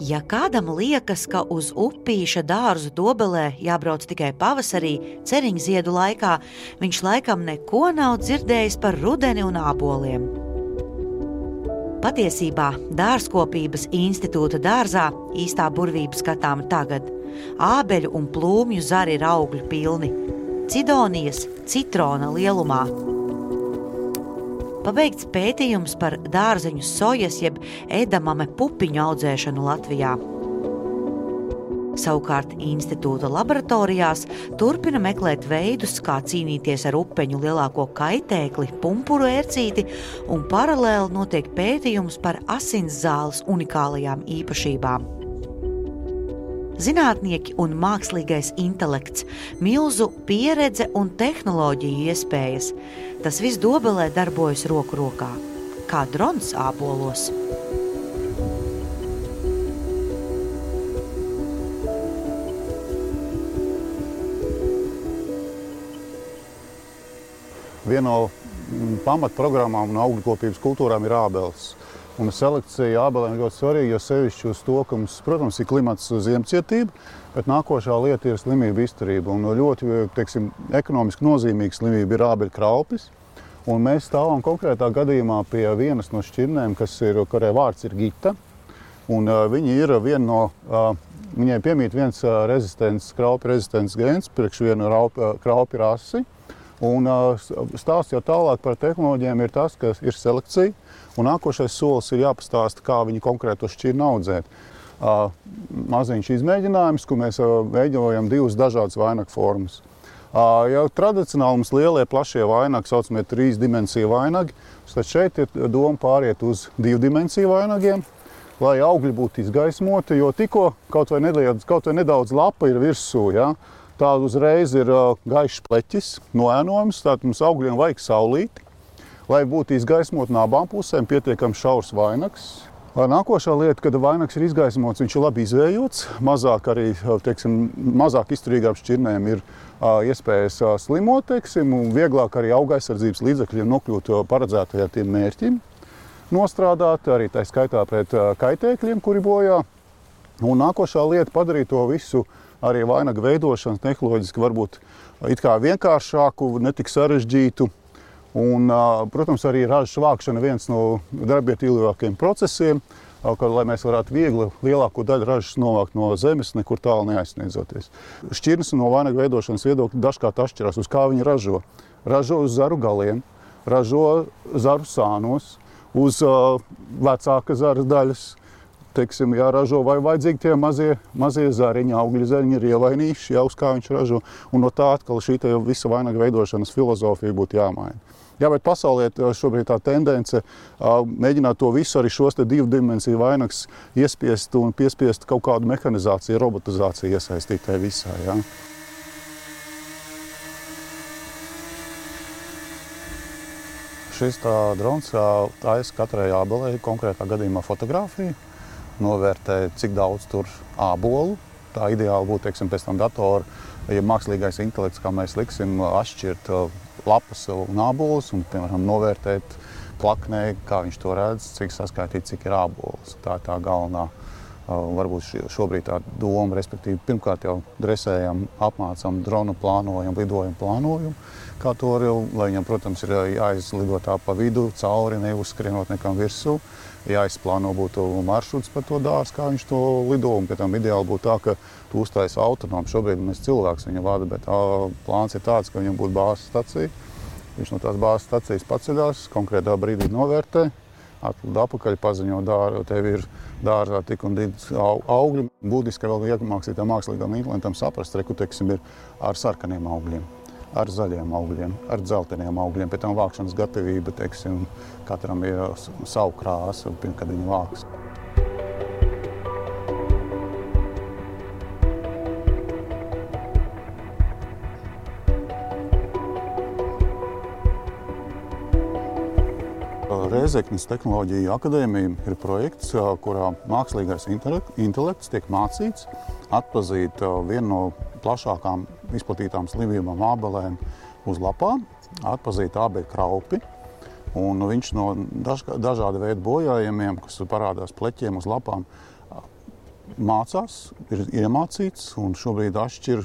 Ja kādam liekas, ka uz upīša dārzu Dobelē jābrauc tikai pavasarī, ceriņziedu laikā, viņš laikam neko nav dzirdējis par rudeni un āboliem. Patiesībā Dārzkopības institūta dārzā īstā burvība skatāma tagad. Ābeļu un plūmju zari ir augļu pilni, cidonijas citrona lielumā. Pabeigts pētījums par dārzeņu sojas jeb edamame pupiņu audzēšanu Latvijā. Savukārt institūta laboratorijās turpina meklēt veidus, kā cīnīties ar upeņu lielāko kaitēkli, pumpuru ērcīti, un paralēli notiek pētījums par asinszāles unikālajām īpašībām. Zinātnieki un mākslīgais intelekts, milzu pieredze un tehnoloģiju iespējas. Tas viss Dobelē darbojas roku rokā, kā drons ābolos. Viena no pamatprogrammām un augļkopības kultūrām ir ābeles. Un selekcija ābelēm ļoti svarīga, jo sevišķi uz to, ka mums, protams, ir klimats ziemcietība, bet nākošā lieta ir slimība izturība. Un ļoti, ekonomiski nozīmīga slimība ir ābeļu kraupis. Un mēs stāvam konkrētā gadījumā pie vienas no šķirnēm, kurai vārds ir Gita. Un viņi ir viņai piemīt viens kraupi rezistents gēns priekš vienu kraupi rasi. Un stāsts jau tālāk par tehnoloģijām ir tas, ka ir selekcija, un nākošais solis ir jāpastāsta, kā viņi konkrēto šķirni audzēt. Maziņš izmēģinājums, kur mēs veidojam divas dažādas vainagu formas. Jau tradicionāli mums lielie, plašie vainagi, saucamie 3 dimensiju vainagi, tad šeit ir doma pāriet uz 2 dimensiju vainagiem, lai augļi būtu izgaismoti, jo tikko kaut vai nedaudz lapa ir virsū, ja? Tāda uzreiz ir gaišs pleķis, noēnojums, tātad mums augļiem vajag saulīti, lai būtu izgaismot no abām pusēm pietiekami šaurs vainags. Nākošā lieta, kad vainags ir izgaismots, viņš ir labi izvējots, mazāk izturīgām šķirnēm ir iespējas slimot, un vieglāk arī augaizsardzības līdzekļiem nokļūt paredzētajā tiem mērķim, nostrādāt arī tā skaitā pret kaitēkļiem, kuri bojā. Un nākošā lieta padarīt to visu arī vainagu veidošanu tehnoloģiski varbūt it kā vienkāršāku, netik sarežģītu. Un, protams, arī ražas vākšana viens no darbietilgākajiem procesiem, lai mēs varētu viegli lielāko daļu ražas novākt no zemes, nekur tālu neaizsniedzoties. Šķirnes no vainagu veidošanas viedokļa dažkārt atšķirās, uz kā viņi ražo. Ražo uz zaru galiem, ražo zaru sānos, uz vecāka zara daļas. Ražo vai vajadzīgi tie mazie zariņi, augļu zariņi ir ievainījuši, uz kā viņš ražo. Un no tā atkal šī visa vainaga veidošanas filozofija būtu jāmaina. Jā, bet pasaulē šobrīd tā tendence mēģināt to visu arī šos 2 dimensiju vainagus iespiest un piespiest kaut kādu mehanizāciju, robotizāciju iesaistīt tajā visā. Jā. Šis drons taisa katrai ābelei konkrētā gadījumā fotografiju. Novērtē, cik daudz tur ābolu. Tā ideāli būtu, pēc tam datora, ja mākslīgais intelekts, kā mēs liksim, atšķirt lapas un ābolus un, piemēram, novērtēt plaknē, kā viņš to redz, cik saskaitīt, cik ir ābols. Tā ir tā galvenā, varbūt šobrīd tā doma, respektīvi, pirmkārt jau dresējam, apmācam dronu plānojumu, lidojumu plānojumu, kā to lai viņam, protams, ir jāizlido tā pa vidu, cauri, neuzskrienot nekam virsū. Jāizplāno būtu maršruts par to dārzu, kā viņš to lido, un pie tam ideāli būtu tā, ka tu uztaisi autonomu. Šobrīd mēs cilvēks viņu vada, bet plāns ir tāds, ka viņam būtu bāzes stacija. Viņš no tās bāzes stacijas paceļās, konkrētā brīdī novērtē, atlid apakaļ, paziņo tev ir dārzā tik un tik augļi. Būtiski vēl iemācīt mākslīgam intelektam saprast, ir ar sarkaniem augļiem, ar zaļiem augļiem, ar dzelteniem augļiem. Pēc tam vākšanas gatavība, katram ir savu krāsu, kad viņi vāks. Rēzeknes tehnoloģiju akadēmija ir projekts, kurā mākslīgais intelekts tiek mācīts atpazīt vienu no plašākām izplatītām slimībām ābelēm uz lapām, atpazīt ābeļu kraupi. Un viņš no dažāda veida bojājumiem, kas parādās pleķiem uz lapām, mācās, ir iemācīts un šobrīd atšķir,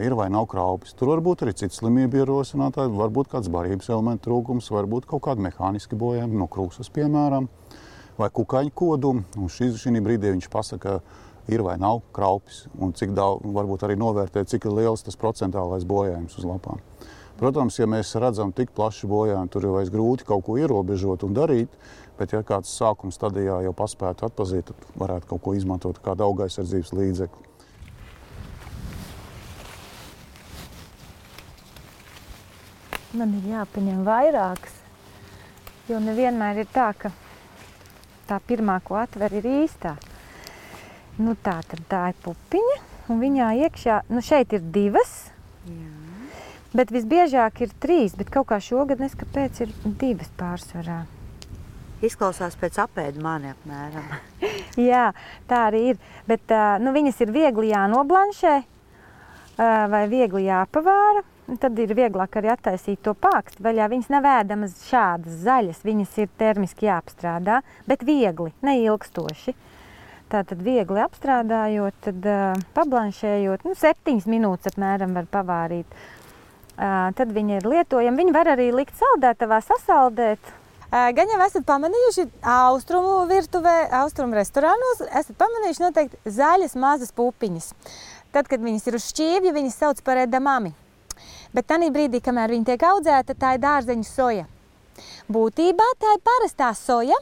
ir vai nav kraupis. Tur var būt arī cits slimību ierosinātāji, varbūt kāds barības elementu trūkums, varbūt kaut kādi mehāniski bojājumi, no krūsas piemēram, vai kukaiņu kodumi. Un šī brīdī viņš pasaka, ir vai nav kraupis un cik daudz, varbūt arī novērtē, cik ir liels tas procentālais bojājums uz lapām. Protams, ja mēs redzam tik plašu bojājumu, tur jau vairs grūti kaut ko ierobežot un darīt, bet ja kāds sākuma stadijā jau paspētu atpazīt, tad varētu kaut ko izmantot kādu augaizsardzības līdzekli. Man ir jāpaņem vairākas, jo nevienmēr ir tā, ka tā pirmā, ko atver, ir īstā. Nu tā ir pupiņa, un viņā iekšā, šeit ir 2, bet visbiežāk ir 3, bet kaut kā šogad neskapēc ir 2 pārsvarā. Izklausās pēc apēdu mani apmēram. Jā, tā arī ir, bet viņas ir viegli jānoblanšē vai viegli jāpavāra. Tad ir vieglāk arī attaisīt to pāksti vaļā. Viņas nav ēdamas šādas zaļas, viņas ir termiski jāapstrādā, bet viegli, neilgstoši. Tātad viegli apstrādājot, tad pablanšējot, 7 minūtes apmēram var pavārīt. Tad viņa ir lietojama. Viņu var arī likt saldētavā, sasaldēt. Gan jau esat pamanījuši austrumu virtuvē, austrumu restorānos, esat pamanījuši noteikti zaļas mazas pupiņas. Tad, kad viņas ir uz šķīvja, viņas sauc par edamami. Bet tanī brīdī, kamēr viņa tiek audzēta, tā ir dārzeņu soja. Būtībā tā ir parastā soja,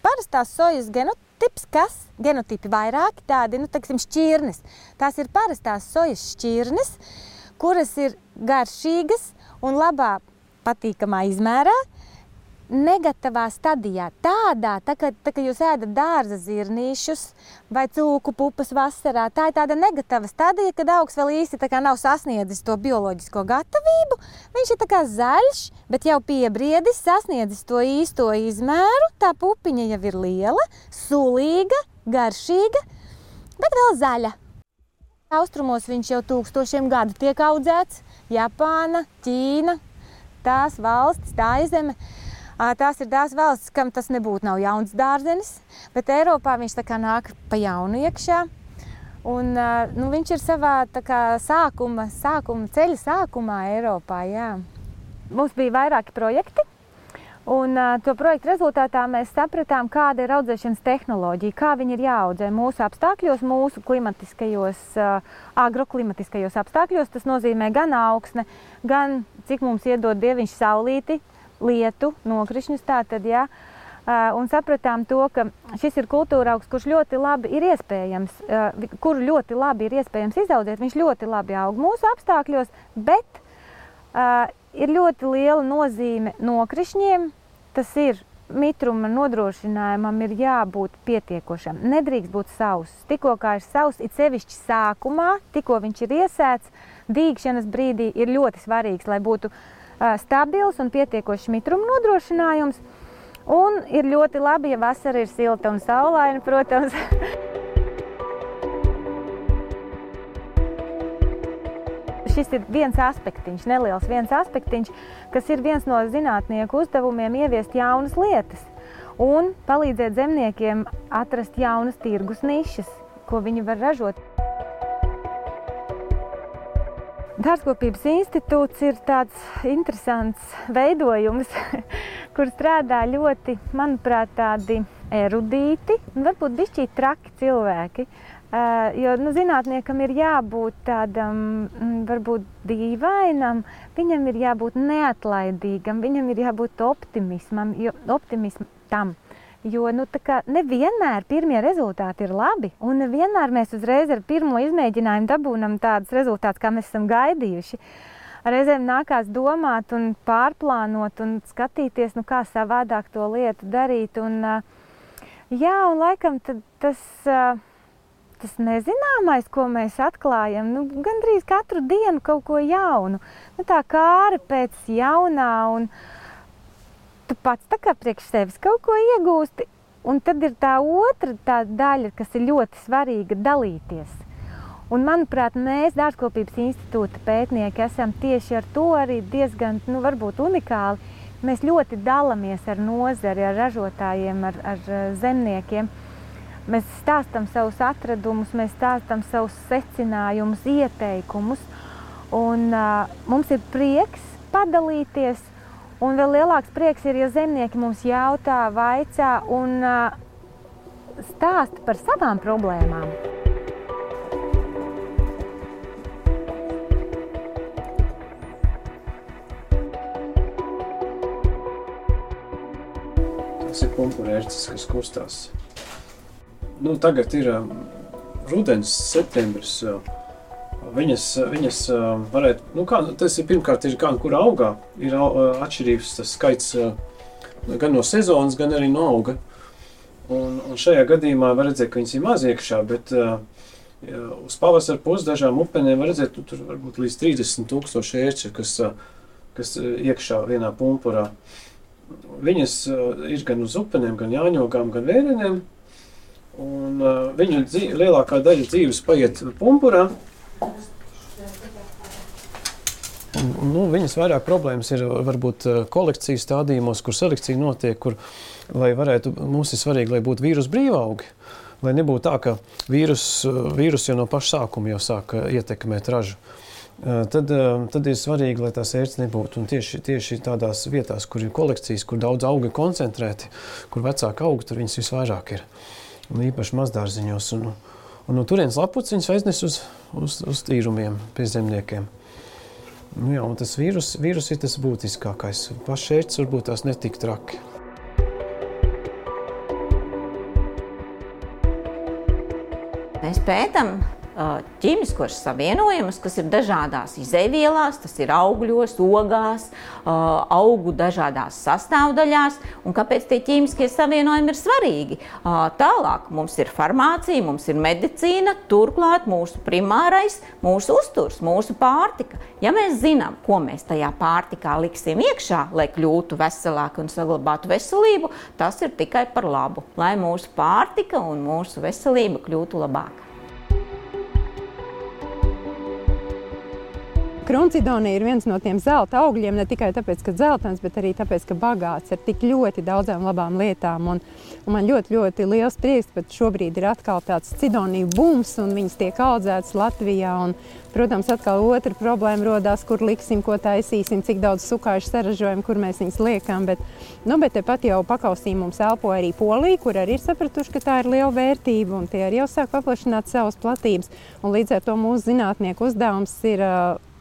parastās sojas genotips, genotipi vairāki tādi, šķirnes. Tās ir parastās sojas šķirnes, kuras ir garšīgas un labā patīkamā izmērā, negatavā stadijā. Tādā, tā kā jūs ēdat dārza zirnīšus vai cūku pupas vasarā, tā ir tāda negatava stadija, kad augs vēl īsti nav sasniedzis to bioloģisko gatavību. Viņš ir tā kā zaļš, bet jau piebriedis, sasniedzis to īsto izmēru. Tā pupiņa jau ir liela, sulīga, garšīga, bet vēl zaļa. Austrumos viņš jau 1000 gadu tiek audzēts. Japāna, Ķīna, tās valstis, tā izeme. Tās ir tās valstis, kam tas nebūtu nav jauns dārzenis, bet Eiropā viņš tā kā nāk pa jaunu iekšā. Un viņš ir savā tā kā ceļa sākumā Eiropā, jā. Mums bija vairāki projekti, un to projektu rezultātā mēs sapratām, kāda ir audzēšanas tehnoloģija, kā viņi ir jāaudzē mūsu apstākļos, mūsu agroklimatiskajos apstākļos. Tas nozīmē gan augsne, gan cik mums iedod Dieviņš saulīti, lietu, nokrišņus tātad, jā. Un sapratām to, ka šis ir kultūra augs, kurš ļoti labi ir iespējams, kuru ļoti labi ir iespējams izaudzēt. Viņš ļoti labi aug mūsu apstākļos, bet ir ļoti liela nozīme nokrišņiem. Tas ir mitruma nodrošinājumam ir jābūt pietiekošam. Nedrīkst būt sauss. Tikko kā ir sauss, it sevišķi sākumā, tikko viņš ir iesēts, dīgšanas brīdī ir ļoti svarīgs, lai būtu stabils un pietiekošs mitruma nodrošinājums. Un ir ļoti labi, ja vasara ir silta un saulaina, protams. Šis ir viens aspektiņš, neliels viens aspektiņš, kas ir viens no zinātnieku uzdevumiem ieviest jaunas lietas un palīdzēt zemniekiem atrast jaunas tirgus nišas, ko viņi var ražot. Dārzkopības institūts ir tāds interesants veidojums, kur strādā ļoti, manuprāt, tādi erudīti un varbūt bišķīt traki cilvēki. Jo zinātniekam ir jābūt tādam, varbūt dīvainam, viņam ir jābūt neatlaidīgam, viņam ir jābūt optimistam. Jo nevienmēr pirmie rezultāti ir labi, un nevienmēr mēs uzreiz ar pirmo izmēģinājumu dabūnam tādus rezultātus, kā mēs esam gaidījuši. Reizēm nākās domāt un pārplānot un skatīties, kā savādāk to lietu darīt. Un laikam tas nezināmais, ko mēs atklājam, gandrīz katru dienu kaut ko jaunu. Tā kāra pēc jaunā, un tu pats tā kā priekš sevis kaut ko iegūsti. Un tad ir tā otra tā daļa, kas ir ļoti svarīga – dalīties. Un, manuprāt, mēs, Dārzkopības institūta pētnieki, esam tieši ar to arī diezgan, varbūt unikāli. Mēs ļoti dalamies ar nozari, ar ražotājiem, ar zemniekiem. Mēs stāstam savus atradumus, mēs stāstam savus secinājumus, ieteikumus, un mums ir prieks padalīties, un vēl lielāks prieks ir, ja zemnieki mums jautā, vaicā un stāsta par savām problēmām. Tas ir pumpurērces, kas kustās. Tagad ir rudens, septembris. Viņas varētu, tas ir pirmkārt ir gan, kur augā, ir atšķirības tas skaits gan no sezonas, gan arī no auga. Un šajā gadījumā var redzēt, ka viņas ir maz iekšā, bet uz pavasara pusi dažām upenēm var redzēt, tur varbūt līdz 30,000 ērču, kas iekšā vienā pumpurā. Viņas ir gan uz upenēm, gan jāņogām, gan vērenēm. Un viņu lielākā daļa dzīves paiet pumpurā. Viņas vairāk problēmas ir varbūt kolekcijas stādījumos, kur selekcija notiek, kur, lai varētu, mums ir svarīgi, lai būtu vīrus brīvaugi, lai nebūtu tā, ka vīrus jau no paša sākuma jau sāk ietekmēt ražu. Tad ir svarīgi, lai tās ērces nebūtu. Un tieši tādās vietās, kur ir kolekcijas, kur daudz augi koncentrēti, kur vecāki augi, tur viņas visvairāk ir. Un īpaši mazdārziņos. Un no turienes lapucis viņas aiznes uz tīrumiem pie zemniekiem. Un tas vīrus ir tas būtiskākais. Pašs ērces varbūt tās netik traki. Mēs pētam ķīmiskos savienojumus, kas ir dažādās izejvielās, tas ir augļos, ogās, augu dažādās sastāvdaļās, un kāpēc tie ķīmiskie savienojumi ir svarīgi. Tālāk mums ir farmācija, mums ir medicīna, turklāt mūsu primārais, mūsu uzturs, mūsu pārtika. Ja mēs zinām, ko mēs tajā pārtikā liksim iekšā, lai kļūtu veselāki un saglabātu veselību, tas ir tikai par labu, lai mūsu pārtika un mūsu veselība kļūtu labāka. Kruncidonija ir viens no tiem zelta augļiem, ne tikai tāpēc, ka dzeltens, bet arī tāpēc, ka bagāts ar tik ļoti daudzām labām lietām. Un man ļoti liels prieks, ka šobrīd ir atkal tāds cidoniju bums, un viņas tiek audzētas Latvijā. Un, protams, atkal otra problēma rodās, kur liksim, ko taisīsim, cik daudz sukāšu saražojam, kur mēs viņas liekam. Bet tepat jau pakausī mums elpo arī Polija, kur arī ir sapratuši, ka tā ir liela vērtība, un tie arī jau sāk paplašināt savas platības. Un līdz ar to mūsu zinātnieku uzdevums ir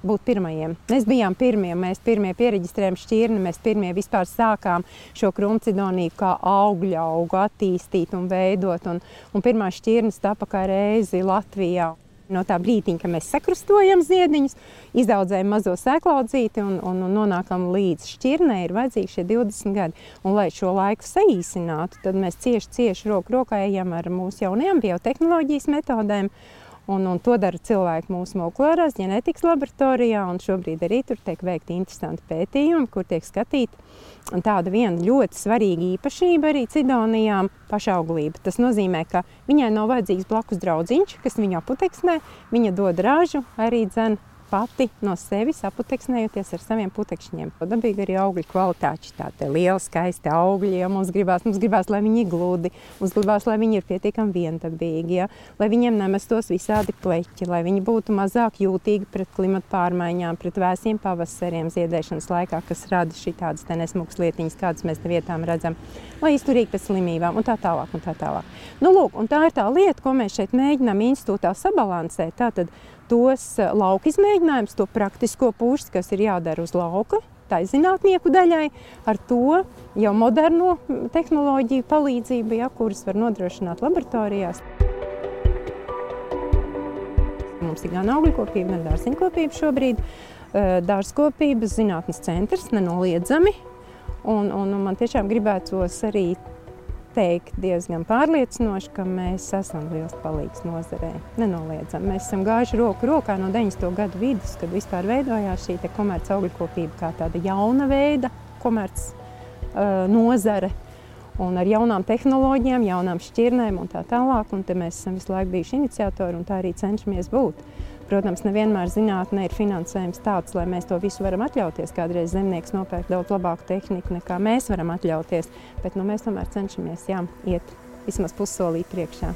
būt pirmajiem. Mēs bijām pirmie, mēs pirmie piereģistrējām šķirni, mēs pirmie vispār sākām šo kruncidoniju kā augļu augu attīstīt un veidot, un pirmā šķirnes tapa kā reizi Latvijā. No tā brītiņa, ka mēs sakrustojam ziediņus, izaudzējam mazo sēklaudzīti un nonākam līdz šķirnei, ir vajadzīgi šie 20 gadi. Un, lai šo laiku saīsinātu, tad mēs cieši roku rokā ejam ar mūsu jaunajām biotehnoloģijas metodēm. Un to dara cilvēki mūsu molekulārās ģenētikas laboratorijā, un šobrīd arī tur tiek veikti interesanti pētījumi, kur tiek skatīta tāda viena ļoti svarīga īpašība arī cidonijām – pašauglība. Tas nozīmē, ka viņai nav vajadzīgs blakus draudziņš, kas viņu aputeksnē, viņa dod ražu arī pati no sevis aputeksnējoties ar saviem putekšņiem. Dabīgi arī augļu kvalitāte, tādi lieli, skaisti augļi, ja mums gribās, lai viņi ir gludi, mums gribās, lai viņi ir pietiekami viendabīgi, ja? Lai viņiem nemestos visādi pleķi, lai viņi būtu mazāk jūtīgi pret klimatu pārmaiņām, pret vēsiem pavasariem ziedēšanas laikā, kas rada šitādas te nesmukas lietiņas, kādas mēs te vietām redzam, lai izturīgi pēc slimībām un tā tālāk. Lūk, un tā ir tā lieta, ko mēs šeit mēģinām institūtā sabalansēt. Tātad tos lauka izmēģinājumus, to praktisko pusi, kas ir jādara uz lauka, tai zinātnieku daļai, ar to jau moderno tehnoloģiju palīdzību, kuras var nodrošināt laboratorijās. Mums ir gan augļkopība, gan dārziņkopība šobrīd. Dārzkopības zinātnes centrs nenoliedzami, un man tiešām gribētos arī teikt diezgan pārliecinoši, ka mēs esam liels palīgs nozarē. Nenoliedzam. Mēs esam gājuši roku rokā no 90. gadu vidus, kad vispār veidojās šī komerc augļkopība kā tāda jauna veida komerc nozare. Un ar jaunām tehnoloģijām, jaunām šķirnēm un tā tālāk. Un te mēs esam visu laiku bijuši iniciatori un tā arī cenšamies būt. Protams, nevienmēr zinātnē ir finansējums tāds, lai mēs to visu varam atļauties. Kādreiz zemnieks nopērk daudz labāku tehniku, nekā mēs varam atļauties, bet mēs tomēr cenšamies iet vismaz pussolī priekšā.